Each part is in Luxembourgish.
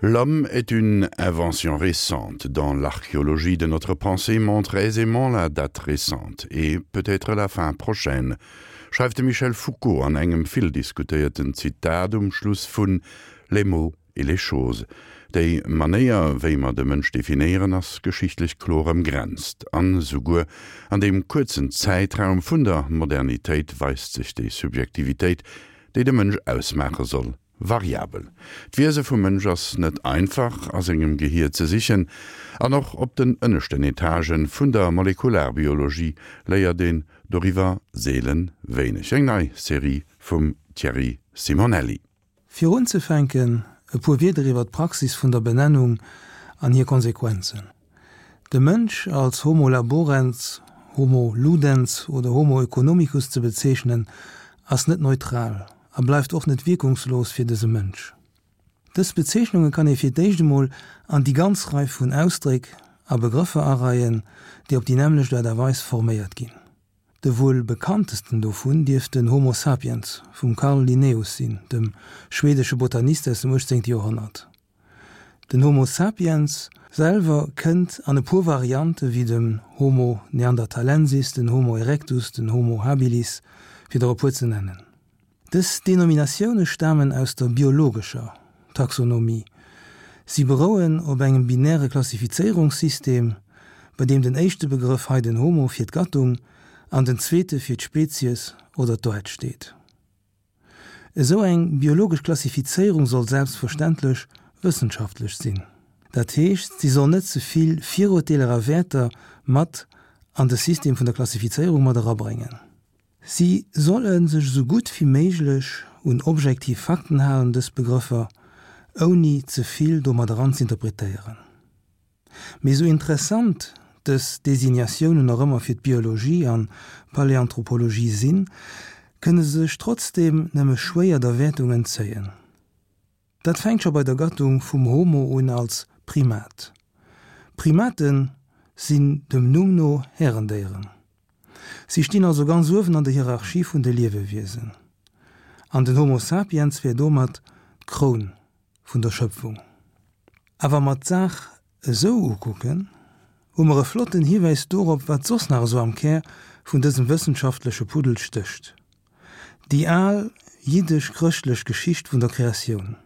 L'homme est une invention récente dans l'archéologie de notre pensée montre aisément la date récente et peut-être la fin prochaine, schreift de Michel Foucault an engem vill diskutéierten Zitat um Schluss vun Les mots et les choses. Déi Manéier, wéi mer de Mënsch definéieren, ass geschichtlech kloer ëmgrenzt. An esouguer an deem kuerzen Zäitraum vun der Modernitéit weist sech déi Subjektivitéit, déi de Mënsch ausmaache soll, variabel. D'Wiese vum Mënsch ass net einfach a sengem Gehier ze sichen, an och op den ënneschten Etagen vun der Molekularbiologie léiert een doriwwer seelen wéineg. Eng nei Serie vum Thierry Simonelli. Fir unzefänken e puer Wierder iwwer d'Praxis vun der Benennung an hir Konsequenzen. De Mënsch als Homo laborens, Homo ludens oder Homo economicus ze bezeechnen, ass net neutral a bleift och net wierkungslos fir dëse Mënsch. Dës Bezeechnunge kann ee fir d'éischt emol an déi ganz Rei vun Ausdréck a Begrëffer areien, déi op déi nämmlecht Aart a Weis forméiert ginn. De wuel bekanntesten dovun dierft den Homo sapiens vum Carl Linnaeus sinn, dem schweedesche Botanist aus dem 18. Joerhonnert. Den Homo sapiens selwer kënnt an e puer Variante wéi dem Homo neanderthalensis, den Homo erectus, den Homo habilis, fir der e puer ze nennen. Dës Denominatioune stamen aus der biologescher Taxonomie. Si berouen op engem binäre Klassifizéierungssystem, bei deem den éischte Begrëff, hei den Homo, fir d'Gattung an den zweete fir d'Spezies oder d'Aart steet. Esou eng biologesch Klassifizéierung soll selbstverständlech wëssenschaftlech sinn. Dat heescht, si soll net ze vill Virurteeler a Wäerter mat an de System vun der Klassifizéierung mat erabréngen. Si solle sech esou gutt wéi méiglech un objektiv Fakten halen, dës Begrëffer, ouni ze vill domat eran z'interpretéieren. Mee esou interessant dës Designatiounen och ëmmer fir d'Biologie an d'Paläanthropologie sinn, kënne se sech trotzdeem nëmme schwéier der Wäertung entzéien. Dat fänkt scho bei der Gattung vum Homo un als Primat. Primate sinn dem Numm no Härendéieren. Si stinn also ganz uewen an der Hierarchie vun de Liewewiesen. An den Homo sapiens wär domat d'Kroun vun der Schëpfung. A wa mer d'Saach esou ukucken, hu mer e flotten Hiwäis dorop, wat soss nach esou am Kär vun dësem wëssenschaftleche Puddel stécht. Déi al jiddesch-chrëschtlech Geschicht vun der Kreatioun.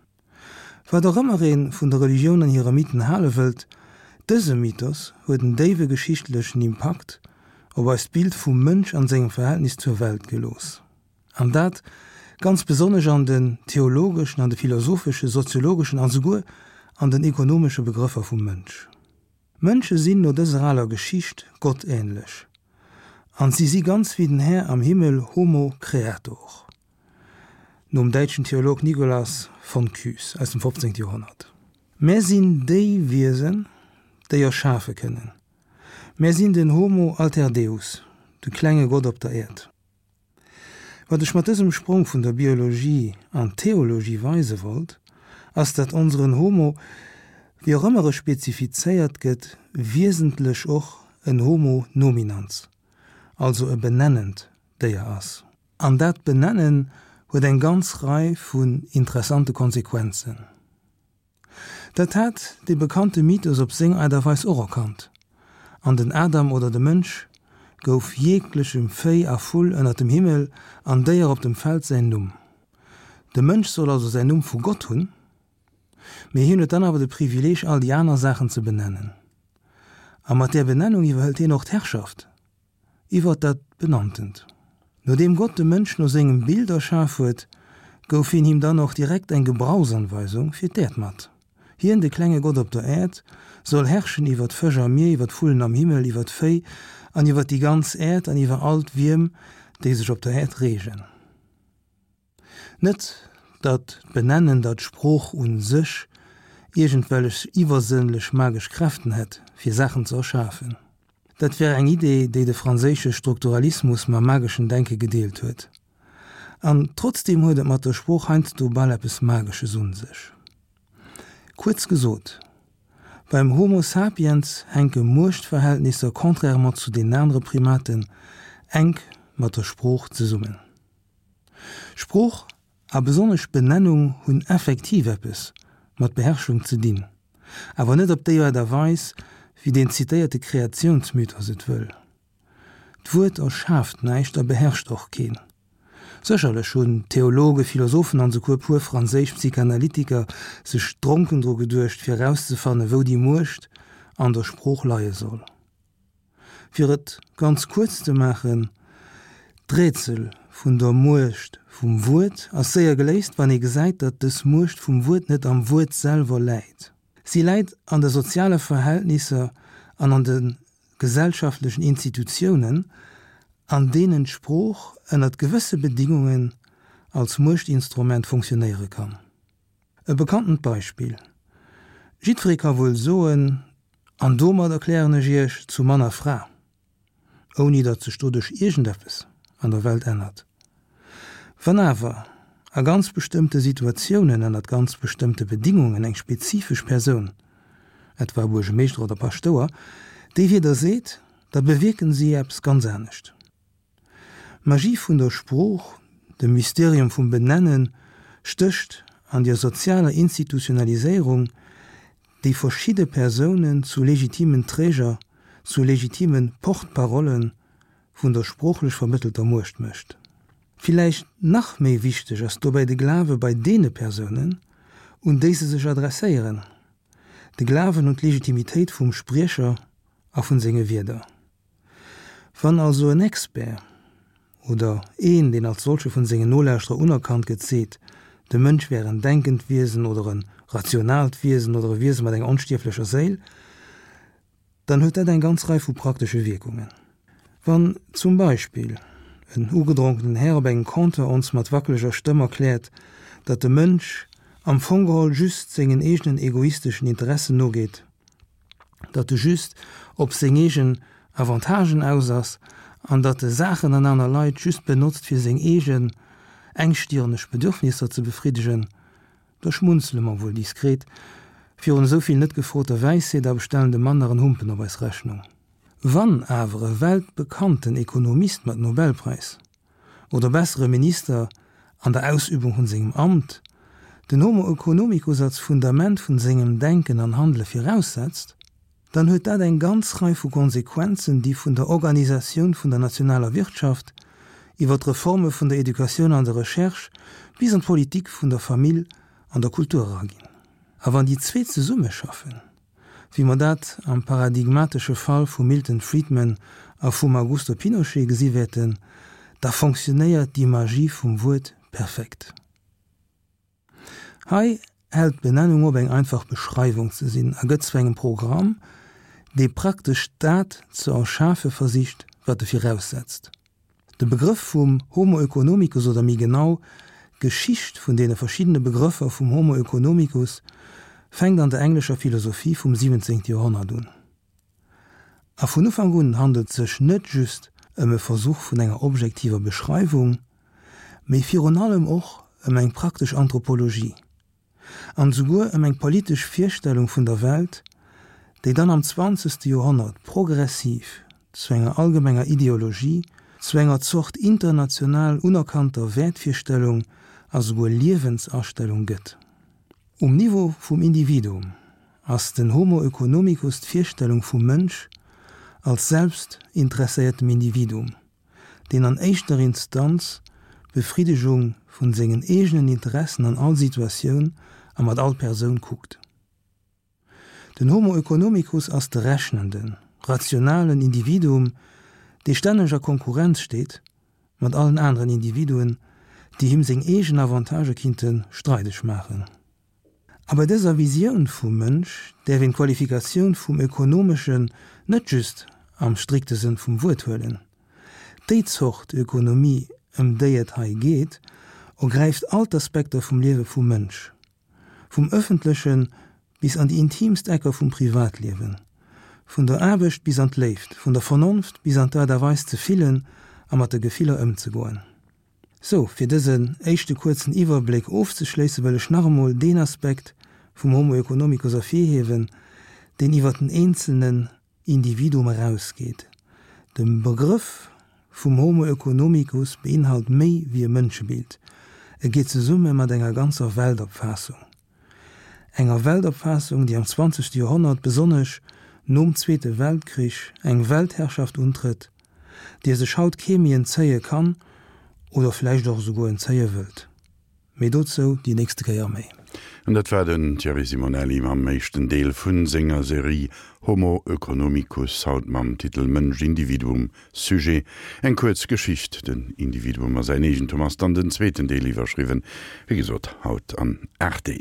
Wat och ëmmer ee vun der Religioun an hire Mythen hale wëllt, dëse Mythos huet en déiwe geschichtlechen Impakt op eist Bild vum Mënsch an sengem Verhältnis zur Welt gelooss. An dat ganz besonnesch an den theologeschen, an de philosopheschen, soziologeschen an souguer an den ekonomesche Begrëffer vum Mënsch. Mënsche sinn no dëser aler Geschicht gottähnlech an si si ganz wéi den Här am Himmel, Homo creator, nom däitschen Theolog Nicolas von Kues aus dem 15. Joerhonnert. Mär sinn déi Wiesen, déi erschafe kënnen. Mär sinn den Homo alter Deus, de klenge Gott op der Äerd. Wat ech mat dësem Sprong vun der Biologie an d'Theologie weise wollt, ass dat onseren Homo, wéi och ëmmer e spezifizéiert gëtt, wiesentlech och en Homo nominans, also e benennend Déier ass. An dat Benennen huet eng ganz Rei vun interessante Konsequenzen. Dat hat dee bekannte Mythos op seng Aart a Weis och erkannt, an den Adam oder de Mënsch gouf jeglechem Véi a Vull ënnert dem Himmel an Déier op dem Feld säin Numm. De Mënsch soll also säin Numm vu Gott hunn, mee hien huet dann awer de Privileeg all déi aner Saachen ze benennen. A mat där Benennung iwwerhëlt hien och d'Herrschaft. Iwwert dat Benanntent. Nodeem Gott de Mënsch no sengem Bild erschaf huet, gouf hien him dann och direkt eng Gebrauchsanweisung fir d'Äerd mat. Hien, de klenge Gott op der Äerd, soll herrschen iwwer d'Fësch am Mier, iwwer d'Vullen am Himmel, iwwer d'Véi an iwwer déi ganz Äerd an iwwer all d'Wierm, déi sech op der Äerd reegen. Net datt d'Benennen der d'Sprooch u sech iergendwellech iwwersënnlech magesch Kräften hätt, fir Saachen ze erschafen. Dat wär eng Idee, déi de franséische Strukturalismus mam mageschen Denke gedeelt huet. An trotzdeem huet et mat der Sprooch heiansdo bal eppes Magesches un sech. Kuerz gesot, beim Homo sapiens hänke Muechtverhältnisser contrairement zu den anere Primaten enk mat der Sprooch zesummen. Sprooch a besonnesch Benennung hunn effektiv eppes. mat Beherrschung ze dinn, awer net op déi Aart a Weis, wéi deen zitéierte Kreatiounsmythos et wëll. D'Wuert erschaaft näischt a beherrscht och keen. Sécherlech hunn Theologe, Philosophen an esouguer e puer franséisch Psychanalytiker sech dronken dru geduecht, fir erauszefannen, wou déi Muecht an der Sprooch leie soll. Fir et ganz kuerz ze maachen, D'Rätsel vun der Muecht vum Wuert ass séier geléist, wann ee gesäit, datt dës Muecht vum Wuert net am Wuert selwer läit. Si läit an de soziale Verhältnisser an an de gesellschaftlechen Institutiounen, an deenen d'Sprooch ënnert gewësse Bedingungen als Muechtinstrument funktionéiere kann. E bekanntent Beispill, Jiddweree ka wuel soen, An domat erklären ech Iech zu Mann a Fra, ouni datt sech doduerch iergendeppes an der Welt ännert. Wann awer a ganz bestëmmte Situatiounen, ënnert ganz bestëmmte Bedingungen eng spezifesch Persoun, etwa e Buergemeeschter oder Paschtouer, déi Wierder seet, da bewierken si eppes ganz anescht. D'Magie vun der Sprooch, de Mysterium vum Benennen, stécht an der sozialer Institutionaliséierung, déi verschidde Persounen zu legitimen Träger, zu legitime Porte-parollen vun der sproochlech vermëttelter Muecht mécht. Villäicht nach méi wichteg ass dobäi de Glawe bei deene Persounen, un déi se sech adresséieren, de Glawen un d'Legitimitéit vum Spriecher a vun senge Wierder. Wann also en Expert, oder een, deen als solche vun sengen Nolauschterer unerkannt gëtt, seet, de Mënsch wär en denkend Wiesen oder e rationaalt Wiesen oder e Wiese mat enger onstierflecher Séil, dann huet dat eng ganz Rei vu praktesche Wierkungen. Wann zum Beispill en ugedronkenen Här op engem Comptoir ons mat wackeleger Stëmm erkläert, datt de Mënsch am Fong geholl just sengen eegenen egoisteschen Interessen nogeet, datt e just op seng eegen Avantagen aus ass an datt e Saachen an aner Leit just benotzt fir seng eegen engstirneg Bedürfnisser ze befriddegen, da schmunzele mer wuel diskret virun esou vill net gefroter Wäisheet a bestellen dem Mann nach en Humpen op eis Rechnung. Wann awer e weltbekannten Ekonomist mat Nobelpräis oder besser e Minister an der Ausübung vun sengem Amt, den Homo economicus als Fundament vun sengem Denken an Handele viraussetzt, dann huet dat eng ganz Rei vu Konsequenzen, déi vun der Organisatioun vun der nationaler Wirtschaft iwwer d'Reforme vun der Educatioun an der Recherche bis an d'Politik vun der Famill an der Kultur eraginn. A wann déi zweet zesummeschaffen, wéi mer dat am paradigmatesche Fall vum Milton Friedman a vum Augusto Pinochet gesi wäerten, da fonctionnéiert déi Magie vum Wuert perfekt. Hei hält d'Benennung op eng einfach Beschreiwung ze sinn a gëtt zu engem Programm, dee praktesch dat ze erschafe versicht, wat e viraussetzt. De Begrëff vum Homo oeconomicus oder méi genau, d'Geschicht vun deene verschiddene Begrëffer vum Homo oeconomicus fänkt an der englescher Philosophie vum 17. Joerhonnert un. A vun Ufank un handelt sech net just ëm e Versuch vun enger objektiver Beschreiwung, mee virun allem och ëm eng praktesch Anthropologie. An esouguer ëm eng politesch Virstellung vun der Welt, déi dann am zwanzegste Joerhonnert progressiv zu enger allgemenger Ideologie, zu enger Zort international unerkannter Wäertvirstellung a souguer Liewensastellung gëtt. Um Niveau vum Individuum ass den Homo oeconomicus d'Virstellung vum Mënsch als selbstinteresséiertem Individuum, deen an éischter Instanz d'Befriddegung vun sengen eegenen Interessen an all Situatioun a mat all Persoun kuckt. Den Homo oeconomicus ass de rechnenden, rationalen Individuum, dee stänneg a Konkurrenz steet mat allen aneren Individuen, déi him seng eegen Avantagë kinnte streideg maachen. A bei dëser Visioun vum Mënsch däerf een d'Qualifikatioun vum Ökonomeschen net just am strikte Sënn vum Wuert huelen. Déi Zort Ökonomie, ëm déi et hei geet, ergräift all d'Aspekter vum Liewe vum Mënsch, vum ëffentleche bis an déi intiimst Ecker vum Privatliewen, vun der Aarbecht bis an d'Léift, vun der Vernonft bis an d'Aart a Weis ze fillen a mat de Gefiller ëmzegoen. Sou, fir dësen éischte kuerzen Iwwerbléck ofzeschléissen, wëll ech nach emol deen Aspekt vum Homo economicus ervirhiewen, deen iwwer den eenzelnen Individuum erausgeet. De Begrëff vum Homo economicus beinhalt méi wéi e Mënschebild, e geet zesumme mat enger ganzer Weltopfaassung. Enger Weltopfaassung, déi am zwanzegste Joerhonnert, besonnesch nom Zweete Weltkrich, eng Weltherrschaft untrëtt, deer sech haut kee méi entzéie kann oder vläicht och esouguer entzéie wëllt. Mee dozou déi nächste Kéier méi. An dat war den Thierry Simonelli mam éischten Deel vu senger Serie Homo oeconomicus, haut mam Titel Mënsch, Individuum, Sujet, eng kuerz Geschicht, den Individuum a säin Eegentum ass dann den zweeten Deel, iwwerschriwwen, wéi gesot, haut an 8 Deel.